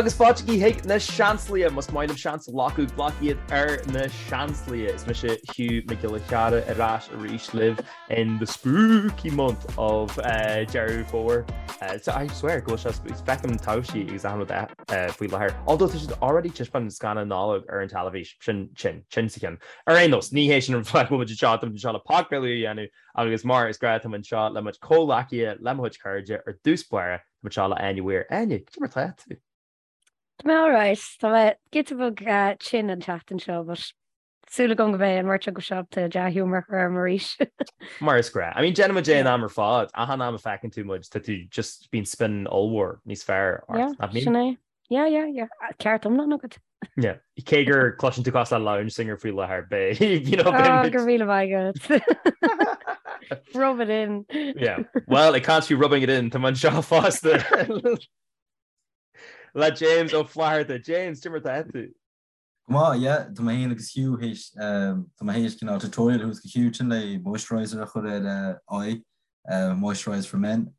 agus fáiltigí chuig na Seansálaithe! Más maith libh seans a ghlacadh, glac iad ar na Seansálaithe! Is mise Hugh Mac Giolla Chearra ar ais arís libh in the spooky month of Deireadh Fómhair. So I swear go bhfuil sé feicim taibhsí agus achan rud faoi láthair. Although tá siad already taispeáint an scannán Nollag ar an teilifís, sin tinn, tinn sa cheann. Ar aon nós, ní hé sin an fáth go bhfuil muid anseo, tá muid anseo le podchraoladh a dhéanamh agus mar is gnáth tá muid anseo le mo chuid comhghleacaithe, le mo chuid cairde ar dtús báire, Tá muid anseo le Áine Weir. Áine, cad é mar tá tú? Tá mé alright. Tá mé giota beag tinn an tseachtain seo, but súil agam go mbeidh an bheirt agaibh ábalta dea-ghiúmar a chur orm arís. Mar is gnáth. I mean, déanann muid é an am ar fad. Achan am a feiceann tú muid, tá tú just bíonn spin ollmhór níos fearr ort. Yeah, Nach mbíonn? sin é. Yeah, yeah, yeah. Ceart iomlán agat. Yeah. Cé gur cloiseann tú cosúil le lounge singer faoi láthair, beidh, you know, beidh muid... Go raibh míle maith agat. Rub it in. Yeah. Well, it can't be rubbing it in, tá muid anseo fosta. Le James Ó Flatharta. James, cad é mar tá tú? Go maith, yeah. Tá mé féin agus Hugh théis, tá mé théis cineál tutorial a thabhairt do Hugh ansin le moisturiser a chur ar a aghaidh, Moisturise for Men.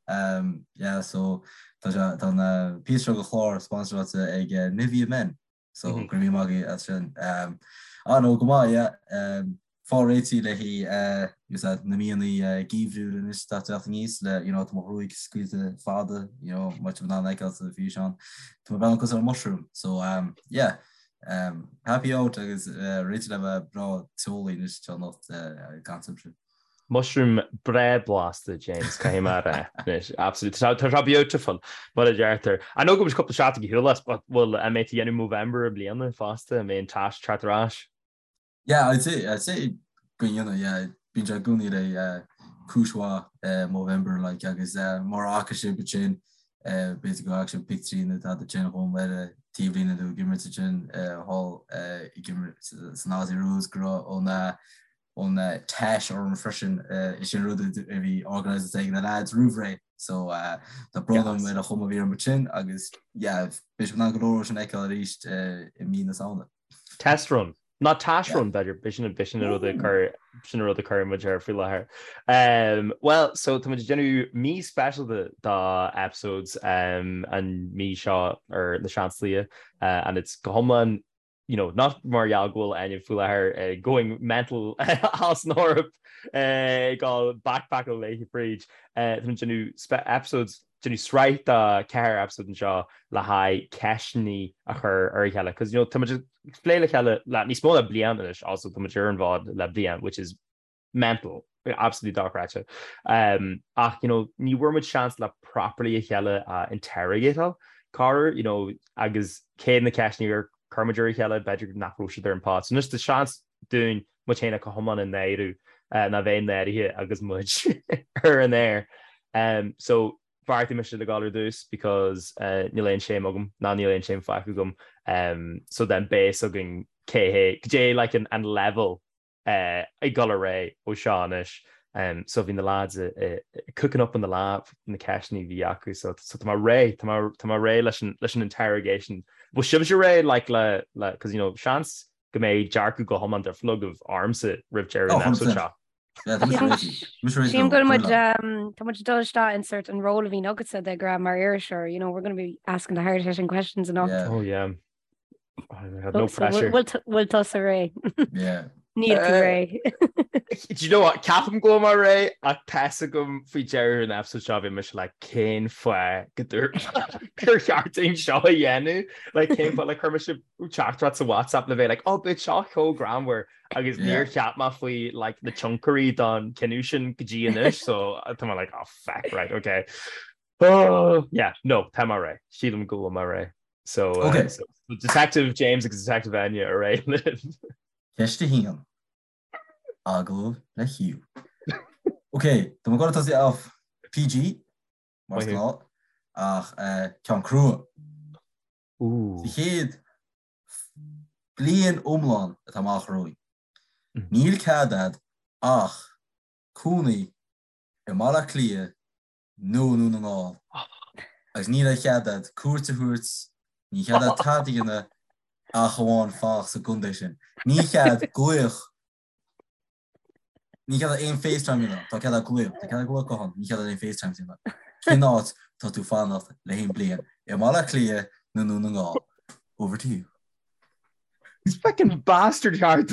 Yeah, so tá sé, tá an píosa seo de chlár sponsoráilte ag Nivea Men. So go raibh míle maith agaibh as sin. Ah no, go maith, yeah. Fáil réitithe le haghaidh na míonna geimhriúil anois atá ag teacht aníos le, you know, tá mo ghruaig scaoilte fada, you know, má tá in ann feiceáil sa bhfíseán. Tá mé breathnú cosúil le mushroom. So yeah, happy out agus réitithe le bheith breá teolaí anois anocht ag caint libhse. Mushroom breá blasta, James, caithfidh mé a rá. Anois, absolutely. Tá sé beautiful, mar a deirtear. I know go bhfuil cúpla seachtain ar shiúl as, but bhfuil, an mbeidh tú ag déanamh Movember i mbliana fosta, an mbeidh an tash teacht ar ais? Yeah, I'd say, I'd say go ndéanfaidh, yeah. Bíonn sé i gcónaí le cúis mhaith Movember, like, agus mura fhaca sibh ansin, b'fhéidir go bhfaca sibh pictiúirí nó tada ansin dhom ar an taobhlíne nó ag imirt ansin thall ag imirt san Aussie Rules go raibh an an tash orm freisin. Is sin rud a bhí organised ag na lads roimh ré so tá brón orm ar an chuma a bhí orm ansin agus yeah beidh sibh in ann go leor sin a fheiceáil arís i mí na Samhna. Test run. Ná tash run b'fhéidir, b'shin b'shin an rud a chur sin an rud a chuir muid air faoi láthair. Well, so tá muid ag déanamh mí speisialta do episodes an mí seo ar na Seansálaithe and it's go hiomlán you know, not mar gheall go bhfuil Áine faoi láthair going mental as an Eoraip ag dul backpackáil léi fríd. Tá muid ag déanamh episodes, déanamh sraith de cheithre episode anseo le haghaidh ceisteanna a chur ar a chéile. Cos you know, tá muid ag plé le chéile le níos mó ná bliain anois also tá muid ar an bhfód le bliain, which is mental, absolutely dochreidte. Ach, you know, ní bhfuair muid seans le properly a chéile a interrogateáil, corruair, you know, agus cé na ceisteanna ar chuir muid ar a chéile, b'fhéidir nach raibh siad ar an pod. So anois tá seans dúinn muid féin a go hiomlán a náiriú, ná bheith náirithe agus muid ar an aer. So bheartaigh mise le gabháil ar dtús because níl aon shame agam, ná níl aon shame fágtha agam. So then beidh a fhios againn cé hé, goidé like an level ag dul ar aghaidh ó seo anois. So bhí na lads cooking up in the lab na ceisteanna a bhí acu so so tá mé réidh tá mé tá mé réidh leis an leis an interrogation. Bhfuil sibhse réidh like le le cos you know seans go mbeidh dearcadh go hiomlán difriúil agaibh ormsa roimh deireadh an episode seo. Sílim go bhfuil muid tá muid ag dul isteach in sort an ról a bhíonn agatsa de ghnáth mar iriseoir, you know, we're going to be asking the hard hitting questions and all. Yeah. Oh yeah. Oh, no pressure. Bhfuil tusa réidh? Yeah. Níl tú réidh. Do you know what? Ceapaim go bhfuil mé réidh ach tá fhios agam faoi deireadh an episode seo bhí mise like cén fáth go dúirt gur cheart dúinn seo a dhéanamh? Like cén fáth like chuir mise teachtaireacht sa WhatsApp le bheith like oh beidh seo chomh greannmhar agus níor cheap mé faoi like na tionchairí don cinneadh sin go dtí anois so tá mé like oh feck right okay. Oh yeah no tá mé réidh sílim go bhfuil mé réidh. So, uh, okay. so Detective James agus Detective Enya ar aghaidh libh. Ceist a haon. Agallamh le Hugh. Ok, tá mé ag goil a tosaí off PG, mar is gnáth, ach uh, ceann crua. Sa chéad bliain iomlán atá amach romhainn. Mm. Níl cead a'd ach cónaí i mBaile Átha Cliath nó i nDún na nGall agus níl aon chead a'd cuairt a thabhairt, níl cead a'd tada a dhéanamh ach amháin fanacht sa gcontae sin. Níl cead glaoch, níl cead a'd aon FaceTime a dhéanamh, tá cead a'd glaoch, tá cead a'd glaoch guthán, níl cead a'd aon FaceTime a dhéanamh. Cén áit tá tú fanacht le haon bliain? I mBaile Átha Cliath. nó Dún na nGall? Over to you. Fucking bastard ceart.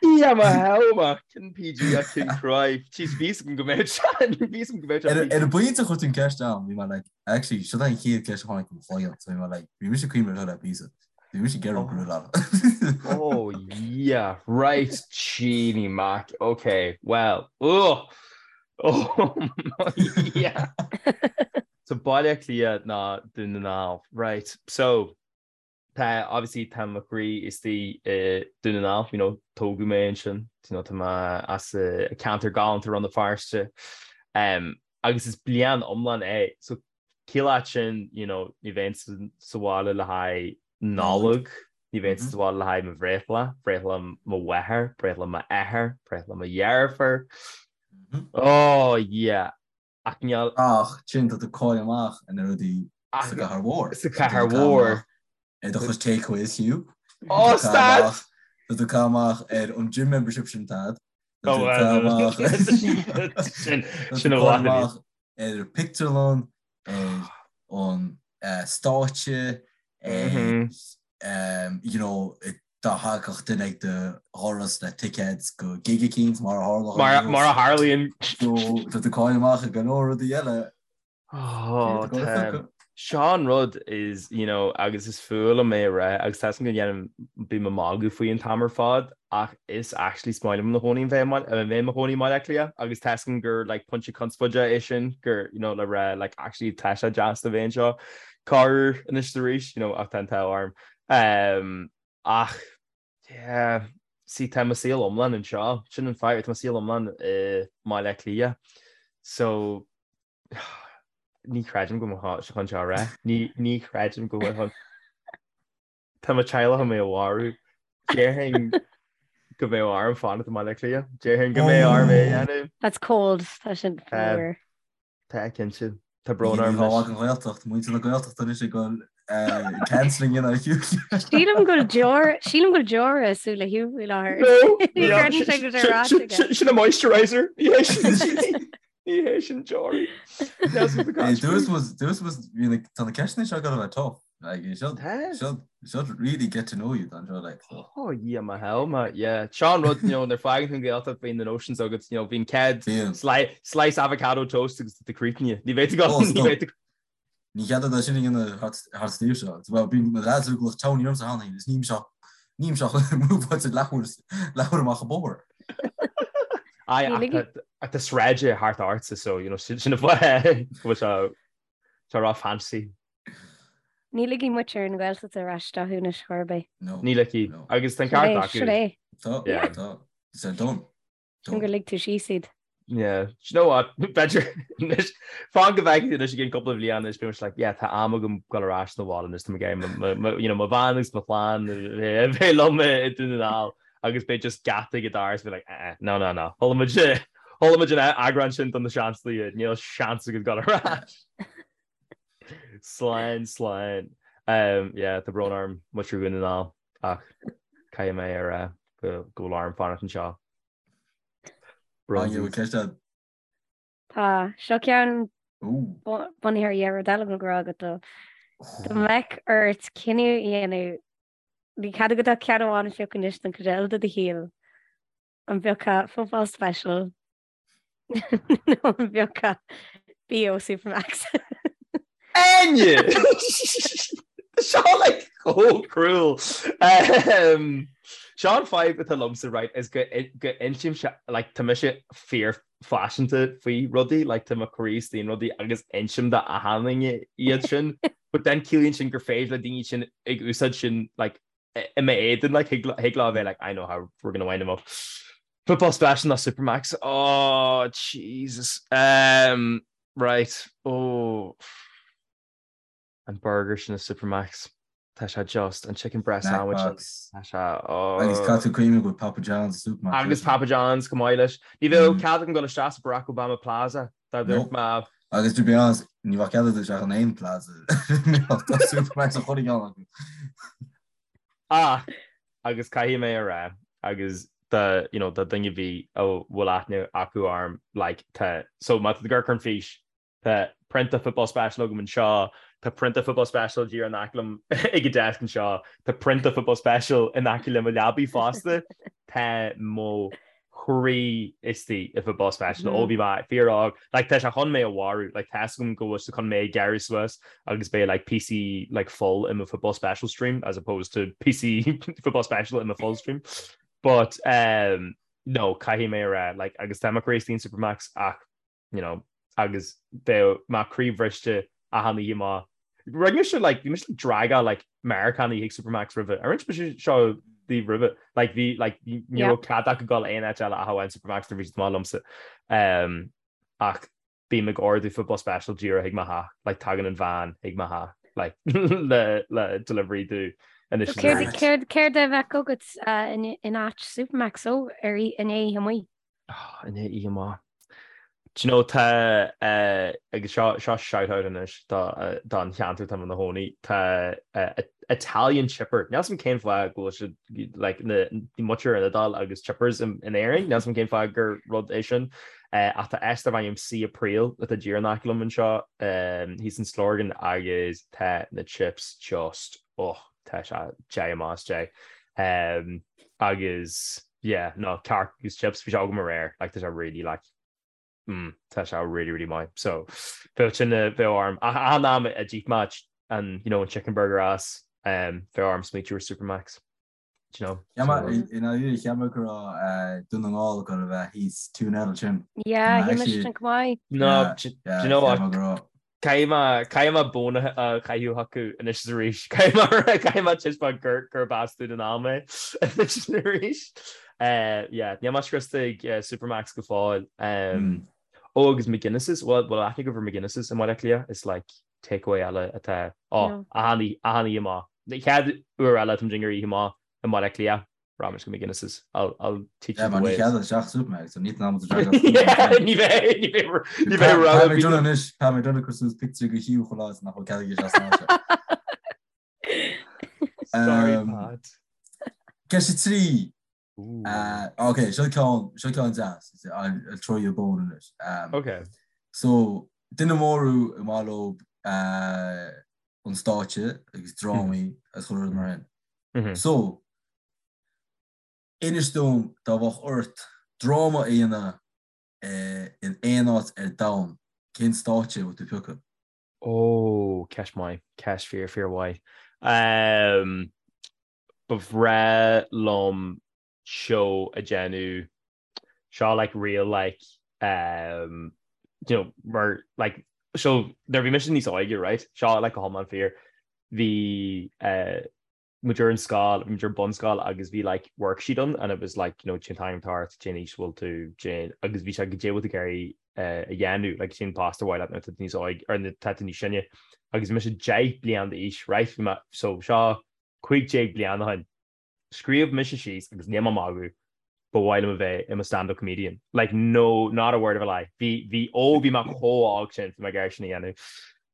Dia mo shábháil, cinn PG a cinn cry. Jeez, bhí 's agam go mbeadh sé, bhí 's agam go mbeadh sé. Ar an bpointe a chuir tú an ceist ann, bhí mé like, actually, seo an chéad ceist a tháinig i mo chloigeann, so bhí mé like, bhí mise ag cuimhneamh ar chuile píosa. Bhí mise ag iarraidh go raibh. Oh yeah, right, Jeannie Mac, okay, well, oh, oh my, yeah. So Baile Átha Cliath ná Dún na nGall, right, so tá, obviously tá mo chroí istigh i Dún na nGall, you know, tógadh mé ansin, you know, tá mé as an ceantar galánta Rann na Feirste, um, agus is bliain iomlán é, so Ciallaíonn sin, you know, ní bheinn sa bhaile le haghaidh Nollag, ní bheinn sa bhaile le haghaidh mo bhreithlá, breithlá mo mháthar, breithlá m'athar, breithlá mo dheirfiúr. Oh yeah. Ach níl. Ach sin tá tú ag caitheamh amach ar na rudaí sa gcathair mhór. Sa chathair mhór. Ar do chuid takeaways Hugh. Oh stad! Tá tú ag caitheamh amach ar an gym membership sin Tad. Tá tú ag caitheamh amach. Sin sin a mhaith. Ar an pictiúrlann, ar an stáitse, ar you know, dá thagadh duine ag do dhoras le ticéid go gig eicínt mar a tharla. Mar a tharlaíonn. So tá tú ag caitheamh amach ar go leor rudaí eile. Oh, tá. Seo an rud is, you know, agus is fuath liom é a rá agus tá 'fhios agam go ndéanaim, bím ag magadh faoi an t-am ar fad ach is actually is maith liom i mo chónaí bheith i mo chónaí i mBaile Átha Cliath agus tá 'fhios agam gur like pointe conspóide é sin gur, you know, le rá like actually tá sé deas a bheith anseo corruair anois is arís, you know, ach tá an t-ádh orm. Um, ach yeah, see tá mo saol iomlán anseo, sin an fadhb, tá mo saol iomlán i mBaile Átha Cliath. So Ní chreidim go bhfuil sé chun seo a rá. Ní chreidim go bhfuil chun. Tá mo teaghlach chun mé a mharú. Déarfainn go mbeadh orm fanacht i mBaile Átha Cliath. Déarfainn go mbeadh orm é a dhéanamh. That's cold. Tá sin fuar. Tá cinnte. Tá brón orm anois. An Ghaeltacht, muintir na Gaeltachta anois ag dul cancelling in ar Hugh. Sílim go bhfuil deora, sílim go bhfuil deora i súile Hugh faoi láthair. No! Ní chreideann sé go bhfuil sé ráite aige. Sin an moisturizer. Ní hé sin. Ní hé sin deoraí. Dúirt muid, tá na ceisteanna seo ag dul a bheith tough. Like, you should, should, should really get to know you don seo, like, so. Oh, yeah, my hell, ma, yeah. Seo an rud, you know, nuair a fágann tú an Ghaeltacht bíonn na notions agat, you know, bíonn céad slice avocado toast agus tú críochnaithe. Ní bheidh tú go, ní bheidh tú. Ní chead duit sin a dhéanamh thart sa tír seo. Bhuel, bíonn mo leaids ag glaoch townie ormsa cheana féin, is nílim seo, nílim seo múbáilte leathuair, leathuair amach an bóthar. Aye, ach tá sráid thart ortsa, so, you know, sin an fáth go bhfuil sé, sé ró-fancy. Ní ligfidh muintir na Gaeltachta ar ais isteach thú anois chor ar bith. No. Ní ligfidh. Agus tá an ceart acu. Sin é. Tá, tá. It's done. Sin gur lig tú síos iad. Yeah, do you know what? B'fhéidir anois, fan go bhfeicfidh tú anois i gcionn cúpla bliain anois, beidh mise like, yeah, tá am agam dul ar ais 'na bhaile anois, tá mé ag iarraidh you know, mo bhean agus mo chlann a bheith liom i Dún na nGall agus beidh just geata ag an doras beidh like, eh, eh, no, no, no, chuala muid, chuala muid an eagrán sin don na seanslaí, níl seans agat dul ar ais. Slán, slán. Um, yeah, tá brón orm, muintir Dhún na nGall, ach caithfidh mé a rá go go bhfuil orm fanacht anseo. Tá seo ceann bunaithe ar dhá rud eile go raibh agat dó. Dá mbeadh ort cinneadh a dhéanamh, ní cead agat ach ceann amháin a phiocadh anois don chuid eile de do shaol. An bpiocfá Football Special nó an bpiocfá BO Supermax? Áine! Seo like chomh cruel. Um, seo an fadhb atá liomsa right is go go insimse like tá mise fíor phaiseanta faoi rudaí like tá mo chroí istigh in rudaí agus insim do achan duine iad sin but then ciallaíonn sin gur féidir le daoine sin ag úsáid sin like i m'éadan like thig thig leo a bheith like I know how we're gonna wind him up. Football Special ná Supermax oh Jesus um, right oh an burger sin i Supermax tá sé just an chicken breast sandwich tá sé oh Agus caithfidh tú cuimhneamh go bhfuil Papa John's i Supermax Agus Papa John's chomh maith leis. Ní bheadh cead agam dul isteach sa Barack Obama Plaza dá dúirt mé. Agus to be honest, ní bheadh cead agat isteach in aon plaza. Tá Supermax a chuile cheann acu. Ach, agus caithfidh mé a rá, agus do, you know, do dhuine ar bith a bhfuil aithne acu orm, like, tá, so má tá tú ag amharc ar an fís. Tá prionta Football Special agam anseo, tá prionta Football Special díreach in aice liom ag an desk anseo, tá prionta Football Special in aice le mo leabaidh fosta. Tá mo chroí istigh i Football Special ó bhí mé fíor-óg. Like tá sé chun mé a mharú, like tá 'fhios agam go bhfuil sé chun mé a ghearradh suas agus beidh like píosaí like fuil i mo Football Special stream as opposed to píosaí Football Special i mo fuil stream. But um, no, caithfidh mé a rá, like agus tá mo chroí istigh in Supermac's ach you know, agus bheadh mé croíbhriste achan oíche má rinne mise like bhí mise like dragáil like Meiriceánaigh chuig Supermac's roimhe. Ar inis mise seo daoibh roimhe? Like bhí like ní raibh cead acu dul aon áit eile ach amháin Supermac's nuair bhí siad amuigh liomsa. Um, ach bím ag ordú football special díreach chuig mo theach, like tagann an veain chuig mo theach like le le delivery domh anois is arís. Céard céard a bheadh agat uh, in in áit Supermac's ó ar inné oíche amuigh? Oh, inné oíche amuigh. Do you know, tá, eh, agus seo, seo shout-out anois do, eh, don cheantar tá mé ina chónaí, tá, eh, Italian chipper. Níl 'fhios a'm cén fáth go bhfuil siad, like, na, muintir an Iodáil agus chippers in, in Éirinn, níl 'fhios a'm cén fáth gur rud é sin. Eh, ach tá áit darb ainm Sea Apríl atá díreach in aice liom anseo, eh, thíos in Stillorgan agus tá na chips just, oh, tá sé deich amach as deich. Um, agus. Yeah, no, cearc agus chips, bhí sé agam aréir, like, tá sé really, like, mm, tá sé really, really maith. So, bheadh sin, bheadh orm, ach achan am a d'ith mé an, you know, an chicken burger as, um, bheadh orm smaoitiú ar Supermac's, do you know? Cheap mé, i ndáiríre, cheap mé go raibh Dún na nGall ag dul a bheith thíos tún eile sin. Yeah, shíl mise sin chomh maith. No, do you know what? Caithfidh mé, caithfidh mé bonn a chaitheamh chucu anois is arís. Caithfidh mé, caithfidh mé taispeáint gur, gurb as Dún na nGall mé anois is arís. Yeah, níl mé scriosta ag Supermac's go fóill. Ó, agus McGuinness's, bhfuil, bhfuil aithne agaibh ar McGuinness's i mBaile Átha Cliath? Is like takeaway eile atá, ó, achan oíche, achan oíche amuigh. Chéad uair eile atá muid i ngar oíche amuigh i mBaile Átha Cliath. Rachaidh muid go McGuinness's. I'll, I'll teach you the ways. Yeah, man, ní chead isteach Supermac's, so ní an am to drag Ní bheidh, ní bheidh, ní bheidh rogha. Tá mé done anois, tá mé done ag cur suas pictiúr de Hugh chuile lá is nach bhfuil cead aige isteach san áit. Sorry, Pat. Ceist a 3. Ok, seo ceann, seo ceann deas. I'll, I'll throw you a bone in it. Um, ok. So, duine mór thú ar maith leo an stáitse agus drámaí agus chuile rud mar sin. So, inis dom dá mbeadh ort dráma a dhéanamh in aon áit ar domhan, cén stáitse a bheadh tú ag piocadh? Ó, ceist maith, ceist fíor, fíor mhaith. Ba bhreá liom seó a dhéanamh, seo like real like um, you know, mar like so nuair a bhí mise níos óige right, seo like go hiomlán fíor, bhí uh, muid ar an scoil, bhí muid ar bunscoil agus bhí like worksheet ann and it was like you know cén t-ainm atá ort, cén aois bhfuil tú, cén agus bhí sé goidé bhfuil tú ag iarraidh uh, a dhéanamh, like cén post ar mhaith leat nuair atá tú níos óige or nuair atá tú níos sine agus bhí mise 10 bliain d'aois right, bhí mé so seo 15 bliain ó shin. Scríobh mise síos agus níl mé ag magadh, ba mhaith liom a bheith i mo stand-up comedian. Like no, not a word of a lie. Bhí, bhí, ó bhí mé chomh óg sin, bhí mé ag iarraidh sin a dhéanamh.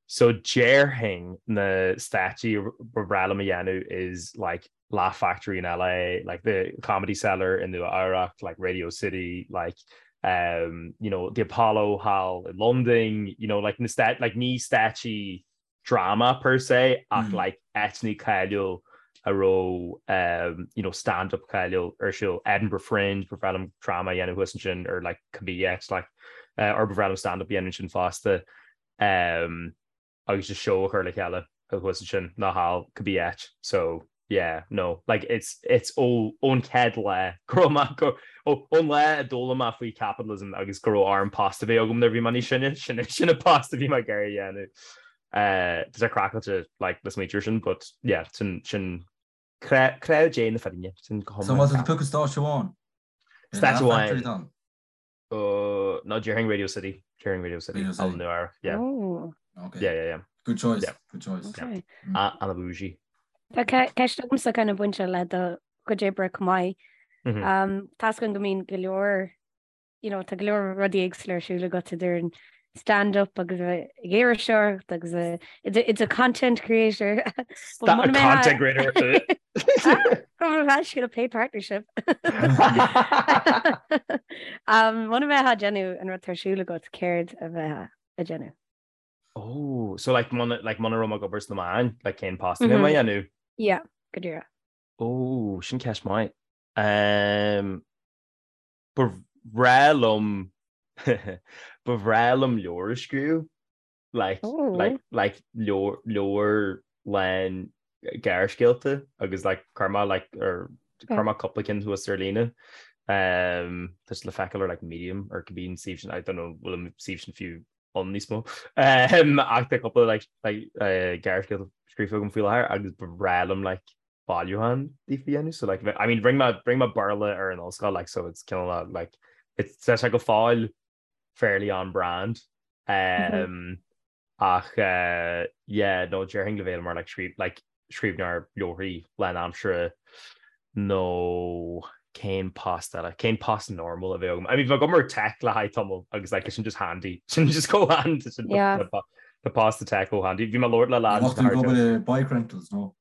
So déarfainn na stáitsí ba bhreá liom a dhéanamh is like Laugh Factory in LA, like the Comedy Cellar in Nua Eabhrac, like Radio City, like um, you know, the Apollo Hall in London, you know, like na stát, like ní stáitsí dráma per se ach like áiteanna cáiliúil a raibh you know stand up cáiliúil ar siúl, Edinburgh Fringe, ba bhreá liom dráma a dhéanamh thuas ansin or like cibé áit like or ba bhreá liom stand up a dhéanamh ansin fosta um agus just show a chur le chéile thuas ansin nó thall cibé áit so yeah no like it's it's ó ón chéad lá go raibh mé go ó ón lá a d'fhoghlaim mé faoi capitalism agus go raibh orm post a bheith agam nuair a bhí mé níos sine sin sin an post a bhí mé ag iarraidh a dhéanamh uh tá sé craiceáilte like le smaointiú air sin but yeah sin sin cré cré Dé na fírinne sin go So má tá tú piocadh stáitse amháin? Stáitse amháin. Uh, no, déarfainn Radio City. Déarfainn Radio City. Radio City. Nua yeah. Oh. Okay. Yeah, yeah, yeah. Good choice. Yeah. Good choice. Okay. Mm. Ana bougie. Tá ceist agamsa kind of bainte le do chuid oibre chomh maith. Mm-hmm. Um, tá a fhios againn go mbíonn go leor, you know, tá go leor rudaí éagsúla ar siúl agat idir an stand-up agus ag iriseoireacht agus it's a content creator. Content creator. Go a paid partnership. Muna mbeifeá ag déanamh an rud atá ar siúl agat céard a bheifeá ag déanamh. Oh, so like muna like muna raibh mé ag obair sna meáin, like cén post a bheadh mé a dhéanamh? Yeah, go díreach. Oh, sin ceist maith. Um, ba bhreá liom ba bhreá liom leabhar a scríobh. Like, oh. like, like leabhar, leabhar lán gearrscéalta agus like chuir mé like ar chuir mé cúpla cinn thuas ar líne. Um, tá siad le feiceáil ar like Medium or cibé an suíomh sin, I don't know bhfuil an suíomh sin fiú ann níos mó. Um, ach tá cúpla like, like, uh, gearrscéalta scríofa agam faoi láthair agus ba bhreá liom like bailiúchán díofa a dhéanamh so like I mean rinne mé rinne mé Béarla ar an ollscoil like so it's cineál like it's tá sé go fóill fairly on brand um, ach uh, yeah no déarfainn le bheith mar like scríb like scríbhneoir leabharthaí lánaimseartha nó cén post eile cén post normal a bheadh agam I mean bheadh agam ar tech le haghaidh tamall agus like sin just handy sin just go handy sin Yeah. the post the tech go handy bhí mé ag labhairt le lad Bheadh tú ag obair i bike rentals nó?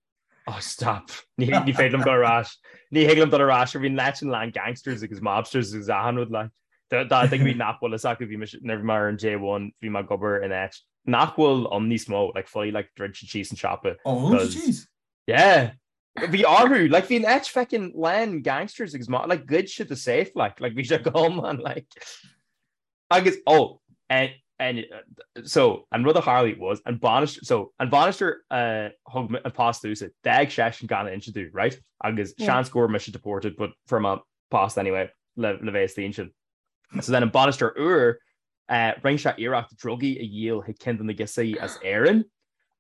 Oh stop. Ní ní féidir liom dul ar ais. Ní thig liom dul ar ais bhí an áit sin lán gangsters agus mobsters agus achan rud like. Dá daoine nach bhfuil fhios acu bhí mise nuair bhí mé ar an J1 bhí mé ag obair in áit nach bhfuil ann níos mó like fully like druid siad síos an siopa. Oh, dhún siad síos? Yeah. Bhí orthu like bhí an áit feckin lán gangsters agus mo like ghoid siad the safe like like bhí sé go hiomlán like Agus, oh, and, and, so, an rud a tharlaigh was, an bainisteoir, so, an bainisteoir a thug an post domhsa, d'fhág seisean gan inse domh, right? Agus seans go raibh mise deported, but fuair mé post anyway le, le bheith istigh ansin. So then an bainisteoir úr, uh, rinne sé iarracht drugaí a dhíol chuig ceann de na girseachaí as Éirinn.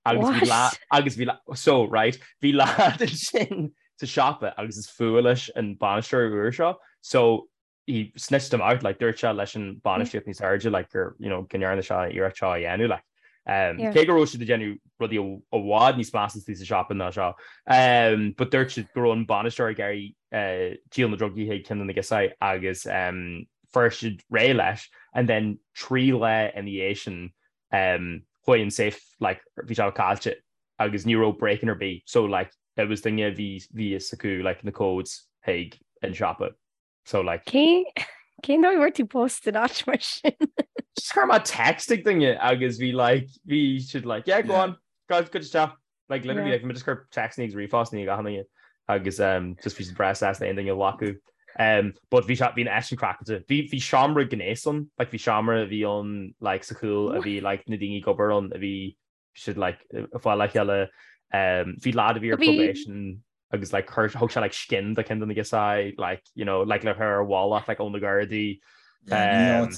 Agus bhí lá, agus bhí lá, so, right, bhí lad ansin sa siopa agus is fuath leis an bainisteoir úr seo, so, he snitched him out, like, dúirt sé leis an bainistíocht níos airde, like, gur, you know, go ndearna sé iarracht seo a dhéanamh, like. Um, yeah. Cé go raibh siad ag déanamh rudaí i bhfad níos measa sa siopa ná seo. Um, but dúirt siad go raibh an bainisteoir ag iarraidh uh, díol na drugaí chuig ceann de na girseachaí agus um, fuair siad réidh leis and then 3 lá ina dhiaidh sin um, chuaigh an safe like, bhí sé caillte agus ní raibh break-in ar bith so like, it was duine bhí bhí fhios acu like, na codes chuig an siopa. So like. Cén cén dóigh a bhfuair tú post in áit mar sin? Just chuir mé text ag duine agus bhí like bhí siad like yeah go on go go isteach like literally like bhí mé just ag cur textanna agus ríomhphostanna ag achan duine agus um just bhí siad breá sásta aon duine a ghlacadh. Um but bhí sé bhí an áit sin craiceáilte. Bhí bhí seomra gnéis ann like bhí seomra a bhí ann like sa chúl a bhí like na daoine ag obair ann a bhí siad like ag fáil le chéile um bhí lad a bhí ar probation agus like chuir thug sé like skin do ceann de na girseachaí like you know like le cur ar a mhullach like ó na Gardaí um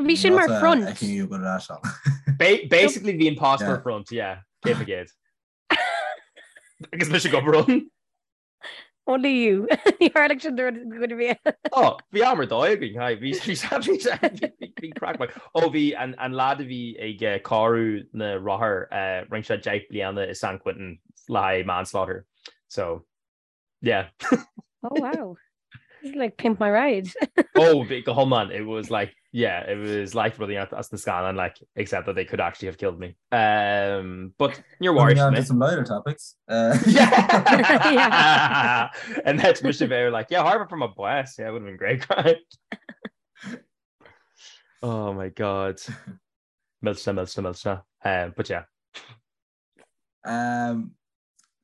Bhí sin mar front. Basically bhí an post mar front yeah 100%. Agus mise ag obair ann. Only you. Ní tharlaigh sin do dhuine bhí. Ó, bhí am ar dóigh againn, hi, bhí bhí bhí bhí bhí craic maith. Ó bhí an an lad a bhí ag eh, cóiriú na rothar eh, rinne sé 10 bliana i San Quentin le haghaidh manslaughter. So, yeah. Oh wow. This is like pimp my ride. Oh, bhí go hiomlán, it was like, yeah, it was like rudaí as na scannáin, like, except that they could actually have killed me. Um, but níor mharaigh siad mé. some lighter topics. Uh, yeah. And that's mise bheith like, yeah, Harvard from a blast. Yeah, it would have been great craic. Oh my God. Millteanach, millteanach, millteanach. Um, but yeah. Um,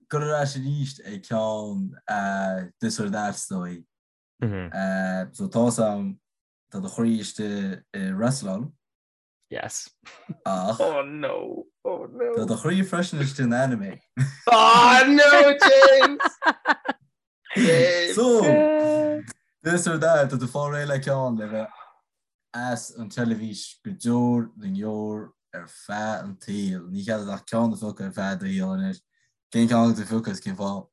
Gabh ar ais arís ag ceann uh, this or that is dóigh. Mm -hmm. Uh, so tá sam tá do chroí istigh i wrestláil. Yes. Ach. Oh no. Oh no. Tá do chroí freisin istigh in anime. Oh no, James! James! So, this or that, tá tú fáil réidh le ceann le bheith as an teilifís go deor na ndeor ar feadh an tsaoil. Ní cead ach ceann a phiocadh ar feadh do shaoil anois. Cén ceann atá tú a phiocadh is cén fáth?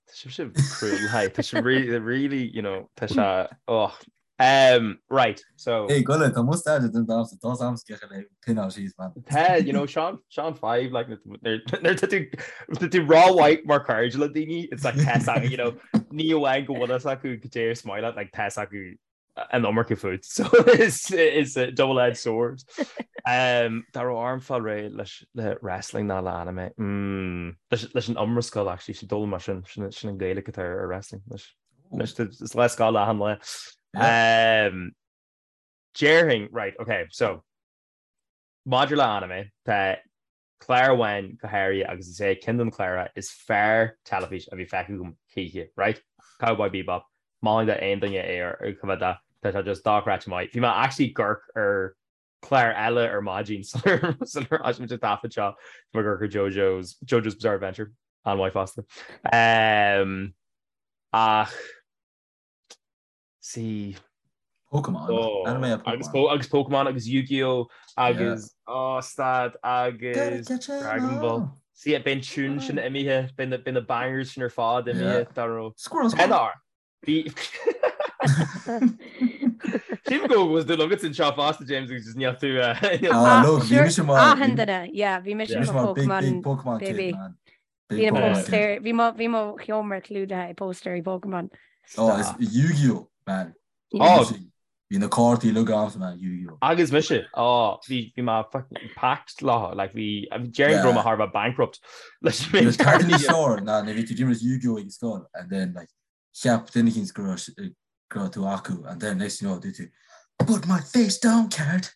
Tá sibh cruel, hi. Tá sibh really, really, you know, tá sé, oh. Um, right, so. Hey, Gullet, tá mustache den damsa, tá am scecha le pinná síos, man. Tá, you know, Sean, Sean 5, like, nuair tá tú, tá tú rómhaith mar chairde le daoine, it's like tá a fhios acu, you know, ní amháin go bhfuil fhios acu goidé is maith leat, like, tá a fhios acu an iomarca fút. So it's, it's a double-edged sword. Um, dá raibh orm fáil réidh leis le wrestling ná le anime. Mm, leis, leis an iomrascáil actually, sin dul mar sin, sin, sin an Gaeilge atá ar wrestling. Leis, leis, is le scáil achan lá. Um, déarfainn, right, okay, so. Maidir le anime, tá clár amháin go háirithe agus is é ceann de na cláracha is fearr teilifís a bhí feicthe agam choíche, right? Cowboy Bebop. Molaim d'aon duine é a choimhéad de, tá sé just dochreidte maith. Bhí mé actually ag amharc ar clár eile ar maidin sular thosaigh muid an taifead seo, bhí mé ag amharc ar JoJo's, JoJo's Bizarre Adventure, an-mhaith fosta. Ach. See. Pokemon. Oh, Anime a Pokemon. Agus, agus Pokemon agus Yu-Gi-Oh! Agus yeah. oh, stad agus Dragon Ball. See, beidh an tune sin imithe, beidh na bangers sin ar fad imithe dá raibh. Squirrel Squirrel. Bhí Sílim go bhfuil dúil agat anseo fosta James agus just níl tú Ah, look, bhí mise mar Achan duine, yeah, bhí mise mar Pokemon Pokemon baby. Kid, man. Bhí na póstaeir, bhí mo, bhí mo sheomra clúdaithe i póstaerí Pokémon. Oh, is Yu-Gi-Oh, man. Oh. Bhí na cártaí uilig agamsa, man, Yu-Gi-Oh. Agus mise, oh, bhí, bhí mé fucking packed leo, like bhí, déarfainn go raibh mé thar a bheith bankrupt leis an méid cártaí. Bhí cártaí ná, nuair a bhí tú ag imirt Yu-Gi-Oh ag scoil, and then like, cheap duine eicínt go raibh go raibh tú acu and then next thing you know dúirt tú Put my face down card!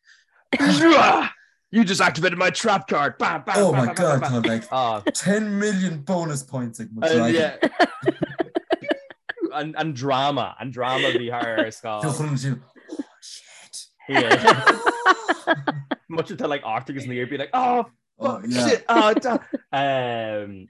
You just activated my trap card! Bam, bam, Oh my god, tá like ah. 10 million bonus points ag mo dragon. An, an drama, an drama bhí thar ar scoil. Oh shit. Much of like Arthur agus Lear be like, oh, oh yeah. shit, oh, um,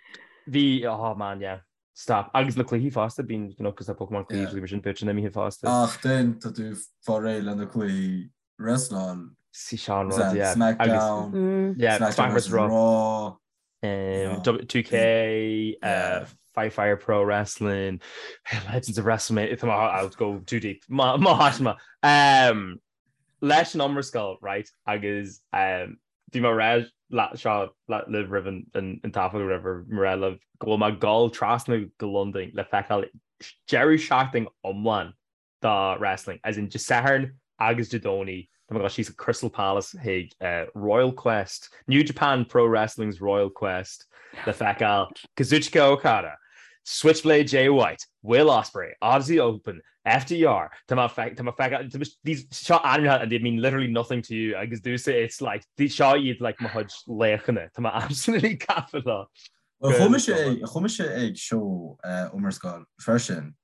bhí, oh man, yeah. Stop. Agus na cluichí fosta, bíonn you know, cos tá Pokemon cluichí yeah. sin bit sin imithe fosta. Ach then tá tú fá réir le na cluichí wrestláil. Sí sin an rud, yeah. SmackDown, mm. yeah, SmackDown vs Raw, Raw. Um, 2K, uh, Fight Fire Pro Wrestling, Legends of WrestleMania, I'll go too deep. Má má Um, leis an iomrascáil, right, agus um, bhí mé ag rá seo libh roimh an taifead or whatever, mé ag rá libh go bhfuil mé ag dul trasna go Londain le feiceáil deireadh seachtain iomlán do wrestling, as in Dé Sathairn agus Dé Domhnaigh, tá mé ag dul síos go Crystal Palace chuig Royal Quest, New Japan Pro Wrestling's Royal Quest le feiceáil Kazuchika Okada, Switchblade Jay White, Will Ospreay, Aussie Open, FTR, tá mé tá mé feiceáil, these seo ainmneacha and they mean literally nothing to you agus domhsa it's like seo iad like mo chuid laochanna, tá mé absolutely gafa leo. Well chuaigh mise ag chuaigh mise ag seó iomrascáil freisin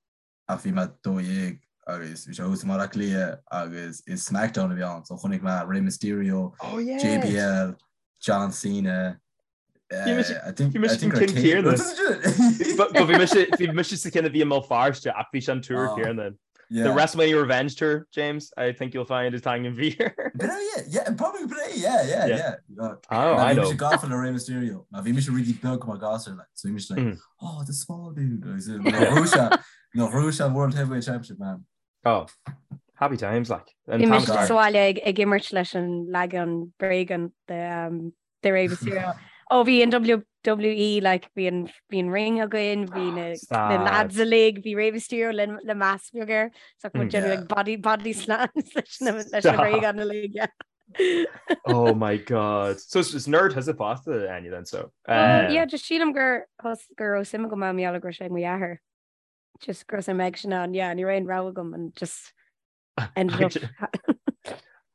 ach bhí mé 12 agus bhí sé thuas i mBaile Átha Cliath agus is SmackDown a bhí ann so chonaic mé Rey Mysterio, Oh yeah. JBL, John Cena, Bhí mise san ceann céanna. Bhí mise sa cheann a bhí i mBéal Feirste ach bhí sé an tour céanna. The WrestleMania Revenge Tour, James, I think you'll find is t-ainm a bhí air. Yeah, probably yeah, yeah, yeah. Oh, I know. Bhí mise gafa le Rey Mysterio. Mar bhí mise really beag mar ghasúr, like, so bhí mise like, oh, the small dude. Nuair a bhuaigh sé an World Heavyweight Championship, man. Oh, happy times, like. Bhí mise sa bhaile ag imirt leis an leagan bréige de de Rey Mysterio. Ó bhí an WWE like bhí an bhí an ring againn, bhí na na lads uilig, bhí Rey Mysterio le le mask beag air, so muid ag déanamh like body body slams leis na leis na bréagáin uilig, yeah. Oh my god. So is nerd thusa fosta Áine then so. Uh, yeah, just sílim gur gur raibh suim agam ann mar gheall go raibh sé ag mo dheartháir. Just go raibh suim aigesean ann, yeah, ní raibh aon rogha agam and just ended up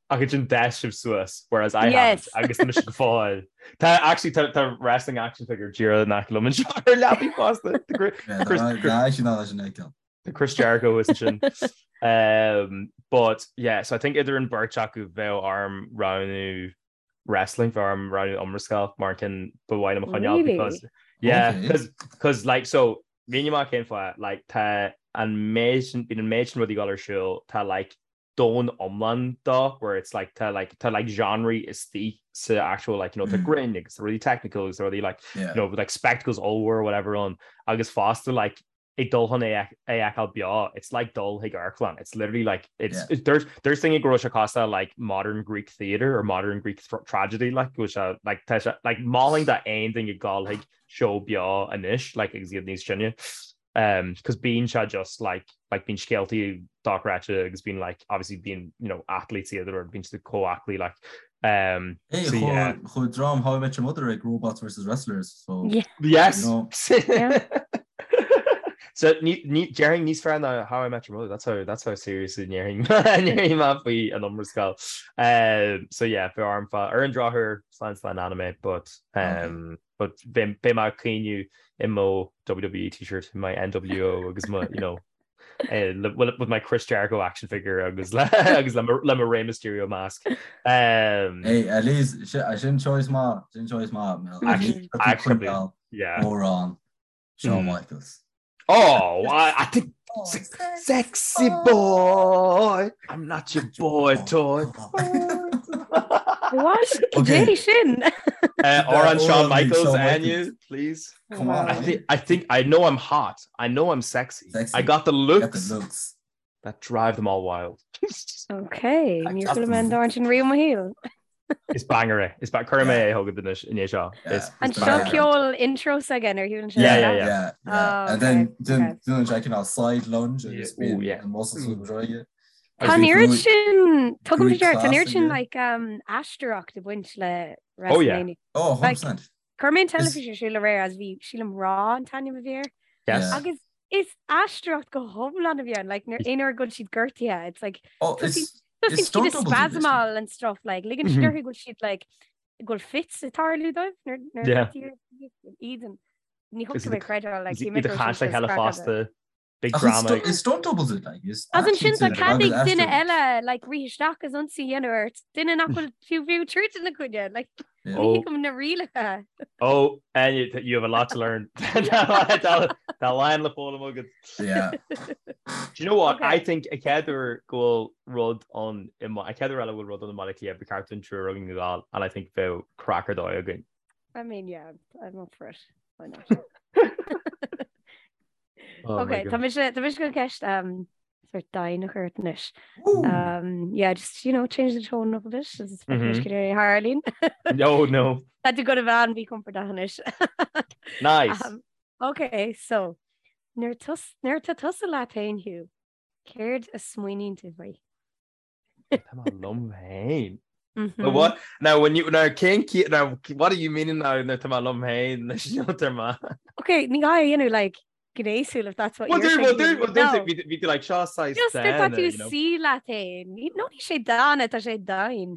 Ach ansin d'fhás sibh suas, whereas I haven't, agus tá mise go fóill. Tá actually tá tá wrestling action figure díreach in aice liom anseo ar leapaidh fosta. Tá Chris Jericho is sin. Um, but yeah, so I think idir an beirt acu bheadh orm roghnú wrestling bheadh orm roghnú iomrascáil mar an ceann ba mhaith liom a choinneáil because yeah because because like so mínigh mé cén fáth like tá an méid sin bíonn an méid sin rudaí ag dul ar siúl tá like domhan iomlán dó where it's like tá like tá like genres istigh sa actual like you know tá grinn agus tá rudaí technical agus tá rudaí like you know like spectacles ollmhór whatever ann agus fosta like ag dul chun é a fheiceáil beo, it's like dul chuig amharclann, it's literally like, it's, yeah. there's, there's daoine go raibh sé cosúil le like modern Greek theatre or modern Greek tragedy, like, go bhfuil sé, like, tá sé, like, mholfainn d'aon duine dul chuig seó beo anois, like, agus iad níos sine, um, cos bíonn sé just like, like, bíonn scéaltaí dochreidte agus bíonn like, obviously bíonn, you know, athletes iad or bíonn siad chomh aclaí, like, um, Hey, so yeah. Chuaigh dream How I Met Your Mother ag Robots vs Wrestlers, so Yeah. Yes! You know. Yeah. So ní ní déarfainn níos fearr ná How I Met Your Mother, that's how that's how seriously ndéarfainn ndéarfainn mé faoi an Iomrascáil. Um, so yeah, bheadh orm fá ar an drochuair slán slán anime, but um, but beidh beidh mé ag caoineadh i mo WWE t-shirt, my NWO agus mo, you know, eh, le, with, with my Chris Jericho action figure agus le agus le mo, le mo Rey Mysterio mask. Um, Hey, at least sin choice maith, sin choice maith, Mel. Actually, actually, yeah. Amhrán. Shawn Michaels. Oh, I, I think oh, sexy boy, I'm not your boy toy. What? Okay. sin? Uh, amhrán Shawn Michaels, Anya, please. Come on. I think I think I know I'm hot. I know I'm sexy. sexy. I got the looks. Got the looks. That drive them all wild. Okay, níor chuala mé an t-amhrán sin riamh i mo shaol. Is banger é. Is cuirfidh mé é chugat anois i ndiaidh seo. Is An seo ceol intro s'aige ar shiúlann sé? Yeah, yeah, yeah. Yeah, yeah. And then déanann sé cineál side lunge agus bíonn an muscle súil go Tá an oiread sin, tugaim faoi deara, tá an oiread sin like aisteoireacht ag baint le WrestleMania. Oh, 100%. Chuir mé an teilifís ar siúl aréir as bhí sílim Raw an t-ainm a bhí air. Yes. Agus is aisteoireacht go hiomlán a bhí ann, like nuair aon uair go bhfuil siad gortaithe, it's like Oh, it's tosaíonn siad ag spasmáil and stuff, like ligeann siad orthu go bhfuil siad like go bhfuil fits ag tarlú dóibh nuair nuair Yeah. iad ní thugtar mé creideáil like Iad ag caint le chéile fosta. Big drama. Is stunt doubles it like is As ansin tá cead ag duine eile like rith isteach agus ionsaí a dhéanamh ort, duine nach bhfuil fiú fiú troid ina choinne, like ní thuigim na rialacha. Oh, and you, you have a lot to learn. Tá a lán le foghlaim agat. Yeah. Do you know what? Okay. I think an chéad uair go bhfuil rud ann i an chéad uair eile go bhfuil rud ann i mBaile Átha Cliath ba cheart dúinn triúr againn a ghabháil and I think bheadh craic ar dóigh againn. I mean, yeah, I'm up for it. Why not? Oh Ok, tá mise tá mise chun ceist um, sort domhain a chur ort anois. Um, yeah, just, you know, change the tone up a bit. Is mm -hmm. Harleen. No, no. Tá tú go bheith an-mhíchompordach anois. Nice. Um, ok, so nuair nuair tá tusa leat féin Hugh, céard a smaoiníonn tú faoi? Tá mé liom féin. But what now when you now cén now what are you meaning now nuair tá mé liom féin leis an ma? Okay, ní gá a dhéanamh like gnéasúil if that's what Well, you're do, well, thinking. do, well, do, No. bhí bhí tú like seo saghas Just nuair tá dána, tú you know. suí leat féin. Ní no ní sé dána tá sé domhain.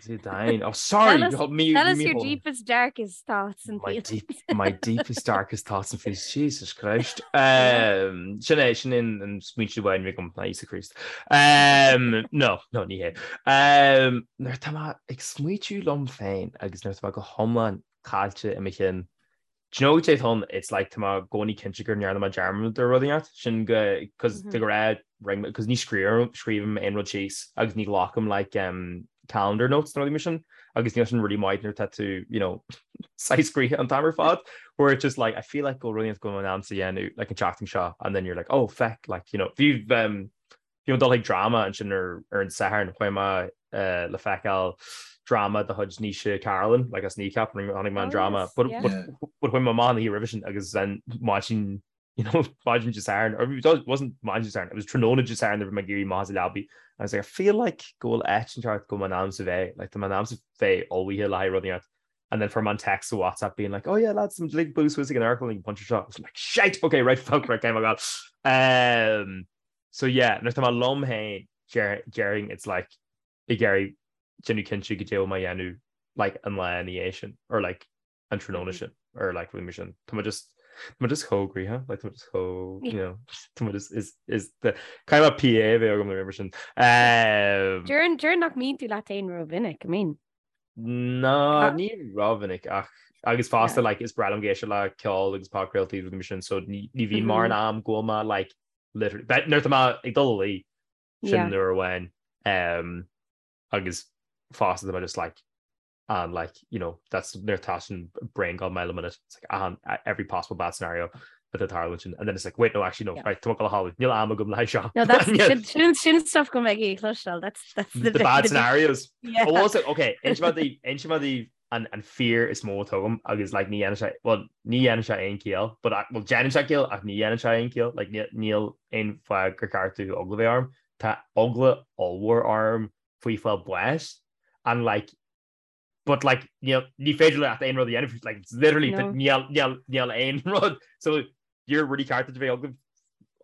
Sé domhain. Oh, sorry. Tell us, hold me, tell us me your hold. deepest darkest thoughts and My feelings. deep, my deepest darkest thoughts and feelings. Jesus Christ. Um, sin é sin in an smaointe amháin agam ná Íosa Críost. Um, no, no, ní hé. Um, nuair tá mé ag smaoitiú liom féin agus nuair tá mé go hiomlán caillte i mo chinn, Do you know what atá ann? It's like tá mé i gcónaí cinnte go ndearna mé dearmad ar rud inteacht, sin go, cos de ghnáth ring mé, cos ní scríobhaim, scríobhaim aon rud síos agus ní ghlacaim like um calendar notes nó rudaí mar sin agus níl sin really maith nuair atá tú, you know, saghas gnoitheach an t-am ar fad where it's just like I feel like go bhfuil rud inteacht go bhfuil mé in ainm is a dhéanamh like an tseachtain seo and then you're like oh feck like you know bhí um Bhí mé ag dul chuig dráma ansin ar ar an Satharn, chuaigh mé le feiceáil dráma de chuid Naoise Carolan, like as Kneecap, chonaic mé an Oh dráma, yes, but yeah. but but chuaigh mé amach an oíche roimhe sin agus then maidin you know maidin Dé Sathairn, or it wasn't maidin Dé Sathairn, it was tráthnóna Dé Sathairn nuair a bhí mé ag éirí amach as an leabaidh, I was like I feel like go bhfuil áit inteacht go bhfuil mé in ainm is a bheith, like tá mé in ainm is a bheith ullmhaithe le haghaidh rud inteacht. And then fuair mé an text sa WhatsApp being like, oh yeah lads, I'm like bualadh suas ag an amharclann ag an bpointe seo. I was like, shite, okay, right, fuck, right, okay, my God. Um, So yeah, nuair atá mé liom féin, déarfainn it's like ag iarraidh déanamh cinnte goidé bhfuil mé a dhéanamh like an lá ina dhiaidh sin or like an tráthnóna sin or like rudaí mar sin. Tá mé just tá mé just chomh gnoitheach, like tá mé just chomh, you know, tá mé just is is the kind of PA a bheith agam nó mar sin. Um, Déarfainn déarfainn nach mbíonn tú leat féin rómhinic, I mean. Ná ní rómhinic ach agus fosta Yeah. like is breá liom ag éisteacht le ceol agus podchraoltaí rudaí mar sin so ní ní bhíonn mórán am go bhfuil mé like literally but nuair atá mé ag dul a luí sin Yeah. nuair amháin um, agus fosta tá mé just like and like you know that's nuair atá sin brain gone mile a minute it's like an every possible bad scenario atá tarlú sin and then it's like wait no actually no Yeah. right tá mé ag dul a chodladh níl am agam le haghaidh seo No, that's sin sin sin stuff go mbeidh ag cloisteáil. That's that's the the bad scenarios Yeah. Oh, also, okay, inseoidh mé daoibh inseoidh mé daoibh an an fear is mó atá agam agus like ní dhéanann sé well ní dhéanann sé aon chiall but I, well déanann sé ciall ach ní dhéanann sé aon chiall like níl níl aon fáth gur ceart domh eagla bheith orm tá eagla ollmhór orm faoi fáil báis and like but like níl ní féidir leat aon rud a dhéanamh like it's literally No. níl níl níl aon rud so you're really ceart duit a bheith eagla.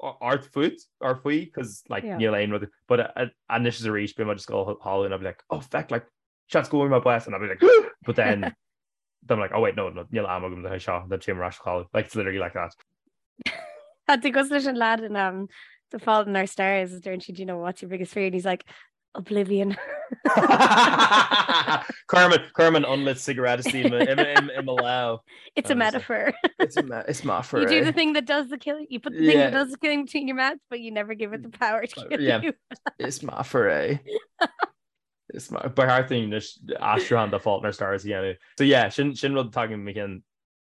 ort fút or faoi cos like níl aon rud but anois is arís bím just ag dul a chodladh and I'll be like oh feck like seans go bhfuair mé bás and I'll be like but then then I'm like oh wait no no níl am agam le seo then téim ar ais a chodladh like it's literally like that. Tá tú cosúil leis an lad in um, The Fault in Our Stars is deireann siad you know what's your biggest fear and he's like Oblivion. Cuirim cuirim an unlit cigarette i mo lámh. It's a metaphor. It's a me it's metaphor. You do the thing that does the killing. You put the thing yeah. that does the killing between your mouth, but you never give it the power to kill yeah. you. It's metaphor é. Is ba cheart dúinn aistriúchán de Fault in Our Stars a dhéanamh. So yeah, sin sin rud atá agam cinn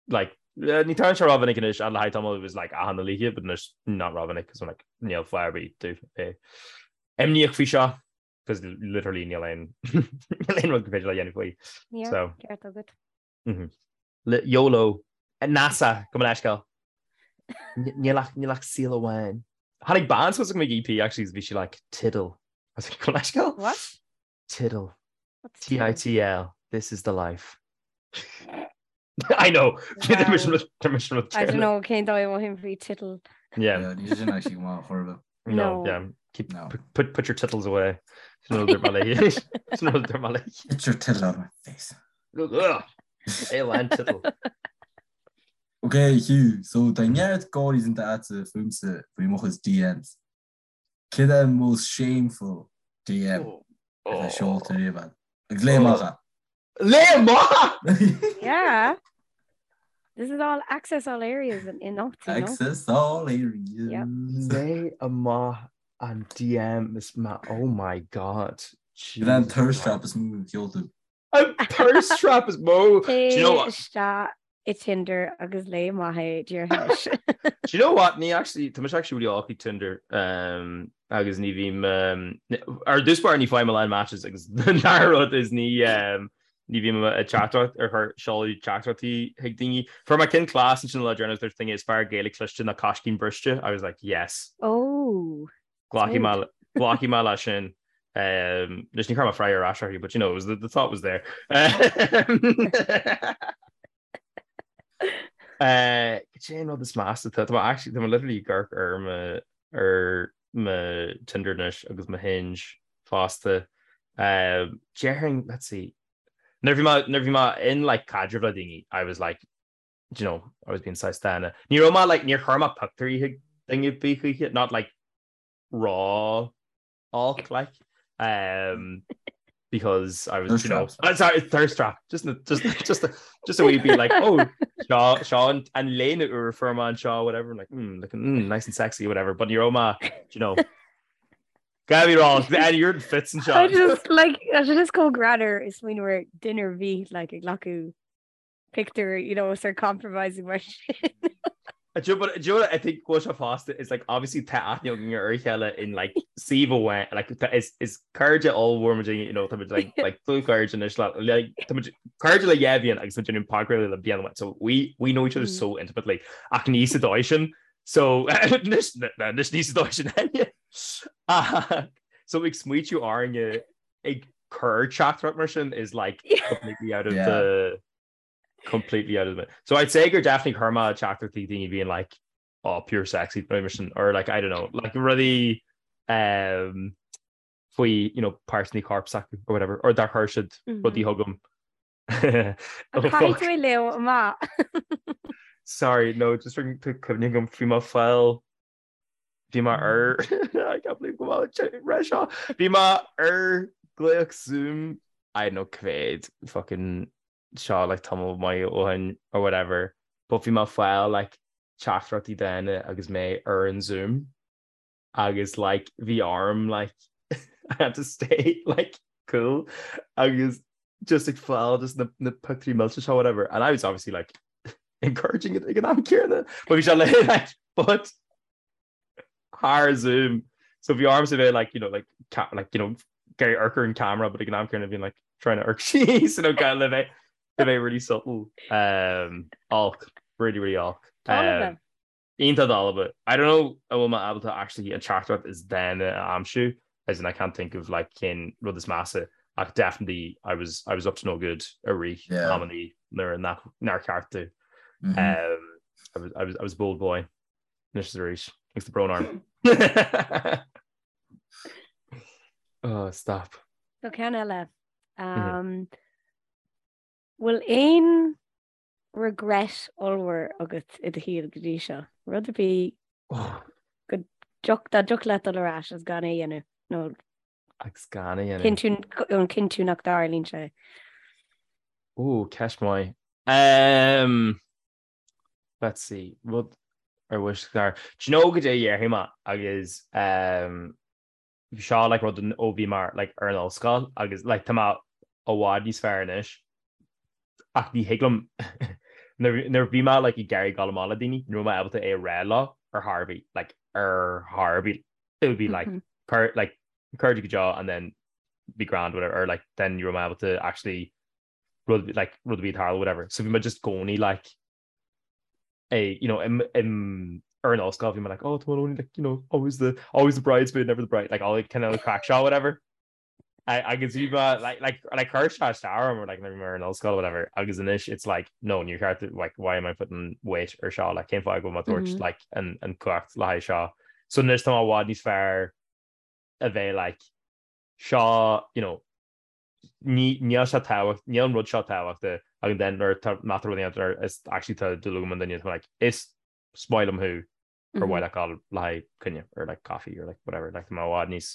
like ní tarlaíonn sé rómhinic anois le haghaidh tamall it was like achan oíche but anois not rómhinic cos I'm like níl fáth ar bith domh bheith imníoch faoi seo cos literally níl aon níl aon rud gur féidir le dhéanamh faoi. Yeah, so ceart agat. Mm -hmm. Le YOLO NASA gabh mo leithscéal. Níl ach níl ach saol amháin. Tháinig bean suas chugam ag EP actually bhí sí like tittle. I was like, gabh mo leithscéal? What? Tittle. T-I-T-L. This is the life. I know. Wow. I don't know cén dóigh a mothaím faoi tittle. Yeah. Yeah, ní sin actually go maith chor ar bith. No, No. yeah. Keep No. put, put put your tittles away. Sin rud ar ma léi. Sin rud ar ma léi. Get your tittle out of my face. Ugh. Élan tittle. Okay, Hugh, so tá neart gáirí déanta agatsa fúmsa faoi mo chuid DMs. Céard é an most shameful DM atá seolta riamh agat? Agus léigh amach é. Léigh amach! Yeah. This is all access all areas in in you know? Access all areas. Yep. Léigh amach an DM is ma oh my god. Céard é an thirst trap is mó a sheol tú. An thirst trap is mó. Do you know what? Isteach i Tinder agus léigh amach é díreach. Do you know what? Ní actually tá mise actually really olc ag Tinder um, agus ní bhím um, ar dtús báire ní fhaighim a lán matches agus an dara rud is ní um, ní bhím ag teachtaireacht ar chur seoladh teachtaireachtaí chuig daoine. Fuair mé ceann class ansin an lá deireanach dúirt duine is fearr Gaeilge cliste ná coiscín briste. I was like yes. Oh. Glacfaidh mé glacfaidh mé leis sin. Um, Anois ní chuir mé freagra ar ais uirthi, but you know, it was the, the thought was there. Uh, Cad é an rud is measa tá tá actually tá literally ag amharc ar mo ar mo Tinder anois agus mo Hinge fosta. Um, Déarfainn, let's see. Nuair bhí mé nuair bhí mé in like caidreamh le daoine, I was like do you know, I was being saghas dána. Ní raibh mé like níor chuir mé pictiúirí chuig duine ar bith choíche, not like raw olc like um, because I was Thirst you know traps. uh, sorry thirst trap just just just just a wee bit like oh seo seo an an léine úr fuair mé anseo whatever like mm, looking mm, nice and sexy whatever but ní raibh mé do you know Gabby wrong and you're fits and I shot just like I should just go greanmhar is smaoineamh ar duine ar bith like ag glacadh pictiúr you know sort compromising mar sin. Do you know what do you know what I think go bhfuil sé fosta is like obviously tá aithne againn ar a chéile in like suíomh amháin like tá is is cairde ollmhór muid you know tá muid like like dlúthchairde anois le like tá muid cairde le dhá bhliain agus muid déanamh podchraoladh le bliain amháin so we we know each other so intimately ach ní sa dóigh sin so anois anois ní sa dóigh sin aine so ag smaoitiú orainne ag cur teachtaireacht mar sin is like completely out of Yeah. the completely out of the so I'd say gur definitely chuir mé teachtaireachtaí daoine being like oh pure sexy mar sin or like I don't know like rudaí um, faoi you know páirteanna coirp s'acu or whatever or dar chuir siad rudaí chugam Oh, Caithfidh tú é léamh amach. Sorry no just cuimhne agam bhí mé ag fáil Bhí mé ar I can't believe go bhfuil ré seo. Bhí mé ar glaoch Zoom I don't know cá mhéad fucking seo like tamall maith ó shin or whatever but bhí mé ag fáil like teachtaireachtaí daonna agus mé ar an Zoom agus like bhí orm like I had to stay like cool agus just ag fáil just na na pictiúirí millte seo whatever and I was obviously like encouraging it ag an am céanna but bhí sé le like but thar Zoom so bhí ormsa bheith like you know like ca like you know ag amharc ar an camera but ag an am céanna bhí like trying to amharc síos you know kind le bheith le bheith really subtle um olc really really olc um, Iontach dalba. I don't know an bhfuil mé ábalta actually an teachtaireacht is dána a aimsiú, as in I can't think of like cén rud is measa ach definitely I was I was up to no good i rith Yeah. amannaí nuair nach nár cheart domh. Mhm. Um, I was, I was, I was a bold boy. Anois is arís. Agus tá brón orm. Oh, stop. So ceann eile. Um, Bhfuil aon regret ollmhór agat i do shaol go dtí seo? Rud ar bith go dtioc dá dtiocfadh leat dul ar ais agus gan é a dhéanamh nó Agus gan é a dhéanamh. cinntiú an cinntiú nach dtarlaíonn sé. Ó, ceist mhaith. Um, let's see, rud ar wish gar. Do you know goidé a dhéarfaidh mé agus um, bhí seo like rud ó bhí mé like ar an ollscoil agus like tá mé i bhfad níos fearr anois ach ní thig liom nuair a bhí mé like ag iarraidh dul amach le daoine ní raibh mé ábalta é a rá leo ar chor ar bith like ar chor ar bith it would be like mm -hmm. like cairde go deo and then be grand whatever or like then ní raibh mé ábalta actually rud like rud a bhí ag tarlú whatever so bhí mé just i gcónaí like é you know im im ar an ollscoil bhí mé like oh tá only like you know always the always the bridesmaid never the bride like all like kind of craic seo whatever I agus bhí mé like like like chuir sé isteach orm or like nuair a bhí mé ar an ollscoil whatever agus anois it's like no níor cheart like why am I putting weight ar seo like cén fáth go bhfuil mé ag tabhairt mm -hmm. like an an cumhacht le haghaidh seo so anois tá mé i bhfad níos fearr a bheith like seo you know ní níl sé tábhacht níl an rud seo tábhachtach agus then nuair tá má tá rud éigin nuair is actually tá dúil agam i nduine tá like is is maith liom thú ar mhaith leat dul le haghaidh coinne or like coffee or like whatever like tá mé i bhfad níos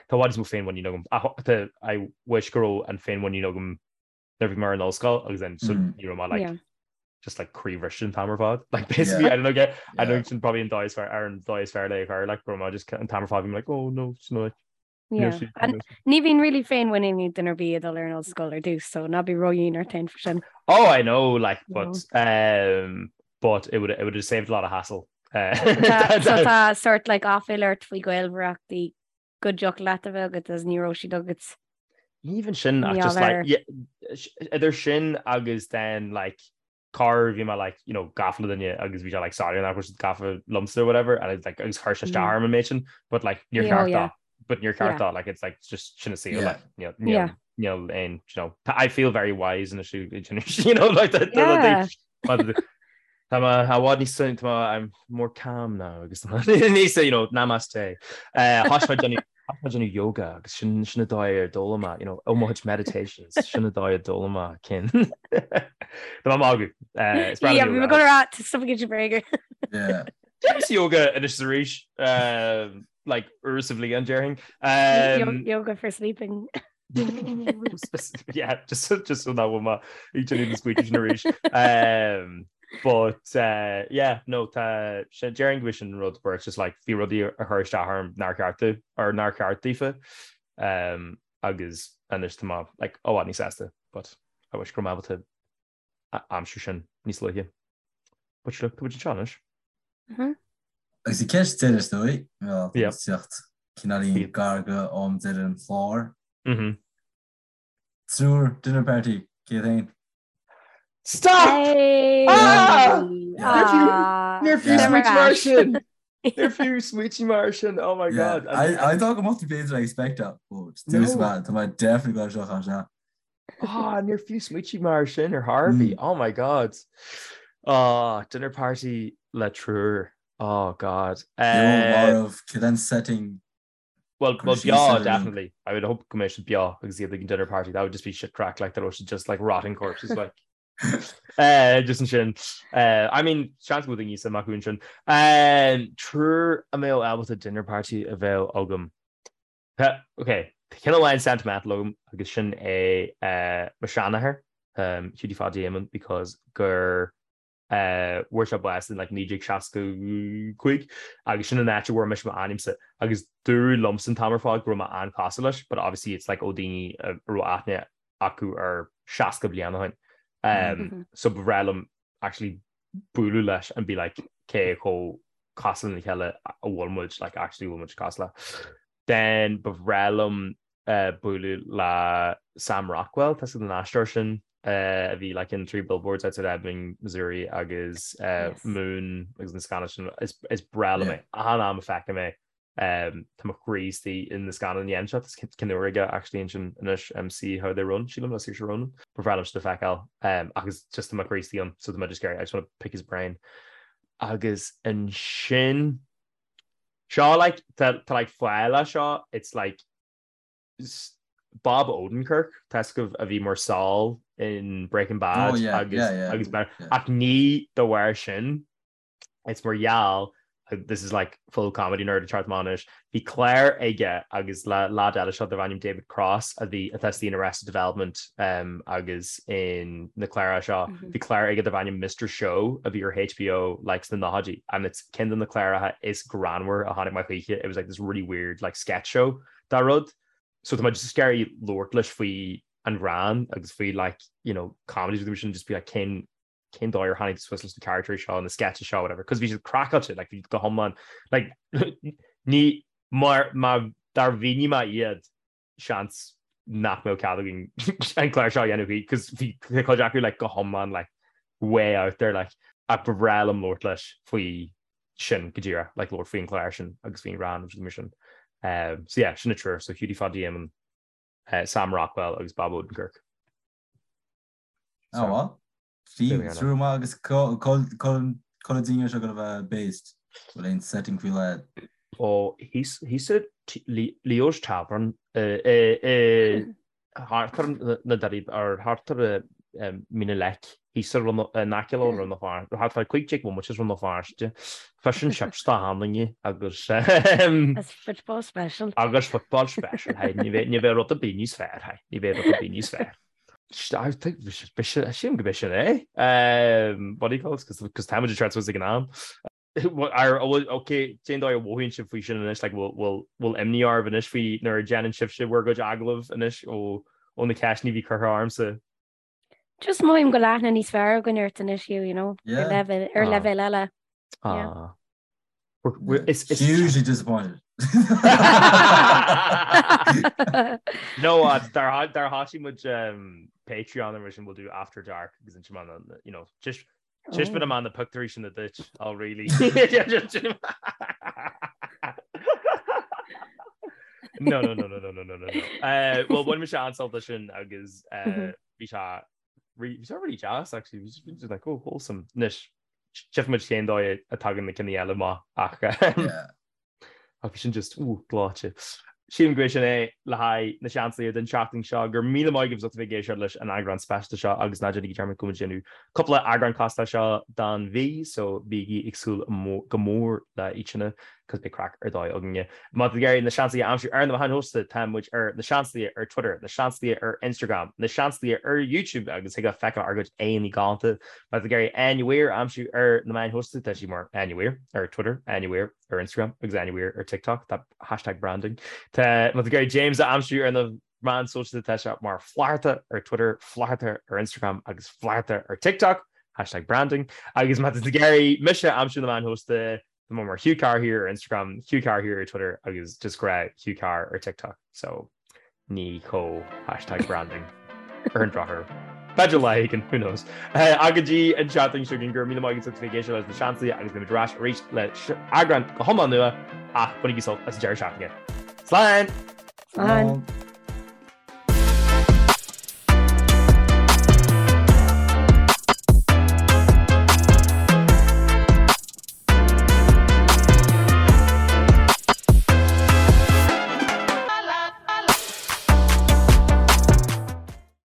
tá i bhfad níos mó féinmhuinín agam ach tá I wish go raibh an féinmhuinín agam nuair a bhí mé ar an ollscoil agus then so ní raibh mé like yeah. just like croíbhriste an t-am ar fad like basically yeah. I don't know get I don't know sin probably an dóigh is fearr ar an dóigh is fearr le a chur like go raibh mé just an t-am ar fad bhí mé like oh no it's not like Yeah. And ní bhíonn really féinmhuinín ag duine ar bith ag dul ar an ollscoil ar dtús, so ná bí ródhian ort féin faoi sin. Oh, I know, like, but, um, but it would, it would have saved a lot of hassle. Uh, so tá sort like aiféala ort faoi ghaolmhaireachtaí go dtiocfadh leat a bheith agat agus ní raibh siad agat. Even sin, ach just like, yeah, idir sin agus then like corruair bhí mé like you know gafa le duine agus bhí sé like sorry nach raibh siad gafa liomsa or whatever and it's like agus chuir sé isteach orm an méid sin but like níor cheart dó but níor cheart dó like it's like just sin an saol like níl níl níl aon you know I feel very wise in you know like that Tá mé i bhfad níos tá mé I'm more calm now agus níos you know namaste. Uh, Thosaigh mé déanamh Tá mé ag déanamh yoga agus sin sin an dóigh ar d'fhoghlaim mé, you know, ó mo chuid meditations, sin an dóigh a d'fhoghlaim mé cinn. Tá mé ag magadh. Eh, is breá liom Yeah, bhí mé yoga. ag dul a rá, tá stuff ag bréaga. Yeah. Déanaimse yoga anois is arís, um, like uair sa bhliain déarfainn. Um, Yoga for sleeping. yeah, just just so nach bhfuil mé ag déanamh na smaointe sin arís. Um, but uh, yeah, no tá sé déarfainn go bhfuil sin rud where it's just like bhí rudaí a chur isteach orm nár cheart do or nár cheart daofa um, agus anois tá mé like i bhfad níos sásta but I wish go raibh mé ábalta aimsiú sin níos luaithe. But look, tá muid anseo anois. Agus an ceist deiridh is dóigh, well, tá muid ag teacht cineáilín gar go am deireadh an chláir. Triúr dinner party, cé féin? Stop! Ah! Níor fiú smaointigh mar sin! Níor fiú smaointigh mar sin, oh my god. I thought go mbeadh tú b'fhéidir expect that, but tá mé definitely go seo seo. Ah, níor fiú smaointigh mar sin ar chor ar bith. Oh my god. Ah, dinner party le triúr. Oh god. Marbh, cad é an setting? Well, well, beo, definitely. I would hope go mbeidh siad beo agus iad ag an dinner party. That would just be shit craic, like, that was just like rotting corpses, like. Uh, just ansin. Uh, I mean, seans go bhfuil daoine suim acu ansin. Um, triúr a mbeadh ábalta dinner party a bheith agam. Tá, ok, tá ceann amháin sentimental agam agus sin é mo sheanathair, Hughie Pháidí Éamonn because gur fuair sé bás in like 1965 agus sin an áit a bhfuair mise m'ainmse agus dúradh liomsa an t-am ar fad go raibh mé an-chosúil leis but obviously it's like ó daoine a raibh aithne acu air 60 bliain ó shin. So ba bhreá liom actually bualadh leis and be like cé chomh cosúil lena chéile a bhfuil muid, like actually bhfuil muid cosúil. Then ba bhreá liom bualadh le Sam Rockwell, tá a fhios agat an aisteoir sin a bhí like in Three Billboards Outside Ebbing, Missouri agus Moon agus na scannáin sin, is breá liom é. Achan am a feicim é Tá mo chroí istigh in na scannáin a dhéanann sé, tá ceann úr aige actually ansin anois See How They Run, sílim, le Saoirse Ronan. Ba bhreá liom sin a fheiceáil agus just tá mo chroí istigh ann so tá mé just ag iarraidh, I just want to pick his brain. Agus ansin. Seo like tá tá like fáth le seo it's like Bob Odenkirk tá a fhios agaibh a bhí mar Saul in Breaking Bad Oh yeah, agus yeah, yeah, agus yeah. ach ní de bharr sin it's mar gheall this is like full comedy nerd ag teacht amach anois bhí clár aige agus le lad eile seo darb ainm David Cross a bhí atá istigh in Arrested Development um, agus in na cláracha seo bhí clár aige darb ainm Mr Show a bhí ar HBO like sna nóchaidí and it's ceann de na cláracha is greannmhar a chonaic mé choíche it was like this really weird like sketch show dá rud. So tá mé just ag iarraidh labhairt leis faoi an ghreann agus faoi like you know comedies with sin just be like cén cén dóigh ar tháinig suas leis na characters seo na sketches seo whatever cos bhí siad craiceáilte like bhí go hiomlán like ní mar má dár mhínigh mé iad seans nach mbeadh cead againn an clár seo a dhéanamh faoi cos bhí cuid acu like go hiomlán like way out there like ach ba bhreá liom labhairt leis faoi sin go díreach like labhairt faoin chlár sin agus faoin ghreann agus mar sin. Um, so yeah, sin na triúr, so Hughie Pháidí Éamonn, uh, Sam Rockwell agus Bob Odenkirk. Oh so, well. Triúr maith agus cá bhfuil seo ag gabháil a bheith based bhfuil aon setting faoi leith. Ó thíos i Leo's Tavern i thart ar na Doirí ar thart ar Mín an Leic, thíos ar in aice le Rann na Feirste, thart fá 15 bhomaite as Rann na Feirste, fish and chips dá sheandaoine agus Agus football special. Agus football special, hey, ní bheidh ní bheidh rud ar bith níos fearr, hey, ní bheidh rud ar bith níos fearr. Sílim go b'é sin é. What do you call it? Cos táimid ag teacht suas ag an am. Ok, cén dóigh a mhothaíonn sibh faoi sin anois, like bhfuil bhfuil imní oraibh anois faoi nuair a dhéanann sibhse bhur gcuid agallamh anois ó ó na ceisteanna a bhí curtha ormsa? Just mothaím go bhfuil aithne níos fearr againn ort anois, Hugh, you know, ar leibhéal ar leibhéal eile. Ah. Is is hugely disappointed. No, dar dar thosaigh muid Patreon ar sin we'll do after dark agus ansin you know, just Taispeánfaidh mé na pictiúirí sin duit, oh really? No, no, no, no, no, no, no, no. Uh, well, bhain mise an-sult as sin agus uh, bhí sé bhí sé really deas actually, bhí sé just like, oh, wholesome. Anois, tchífidh muid cén dóigh a tagann na cinn eile amach ach Yeah. Ach bhí sin just, ooh, gleoite. Sílim gurb é sin é le haghaidh na Seansálaithe don tseachtain seo. Go raibh míle maith agaibh as ucht a bheith ag éisteacht leis an eagrán speisialta seo agus ná déanaigí dearmad go bhfuil muid ag déanamh cúpla eagrán cosúil leis seo don mhí so bígí ag súil go mór le iad sin cos beidh craic ar dóigh againne. Má tá tú ag iarraidh na Seansálaithe a aimsiú ar na meáin shóisialta tá muid ar na Seansálaithe ar Twitter, na Seansálaithe ar Instagram, na Seansálaithe ar YouTube agus thig leat feiceáil ár gcuid aghaidheanna galánta. Má tá tú ag iarraidh Áine Weir a aimsiú ar na meáin shóisialta tá sí mar Áine Weir ar Twitter, Áine Weir. ar Instagram agus Áine Weir ar TikTok, that hashtag branding. Tá má tá tú ag iarraidh James a aimsiú ar na meáin sóisialta tá sé mar Flatharta ar Twitter, Flatharta ar Instagram agus Flatharta ar TikTok, hashtag branding. Agus má tá tú ag iarraidh mise a aimsiú ar na meáin shóisialta tá mé mar Hugh Carr here ar Instagram, Hugh Carr here ar Twitter agus just grá Hugh Carr ar TikTok. So ní chomh hashtag branding ar an drochuair. B'fhéidir lá éigin, who knows. Ach go dtí an tseachtain seo chugainn, go raibh míle maith agaibh as ucht a bheith ag éisteacht leis na Seansálaithe agus beimid ar ais arís le eagrán go hiomlán nua ach bainigí sult as an deireadh seachtaine. Slán! Slán!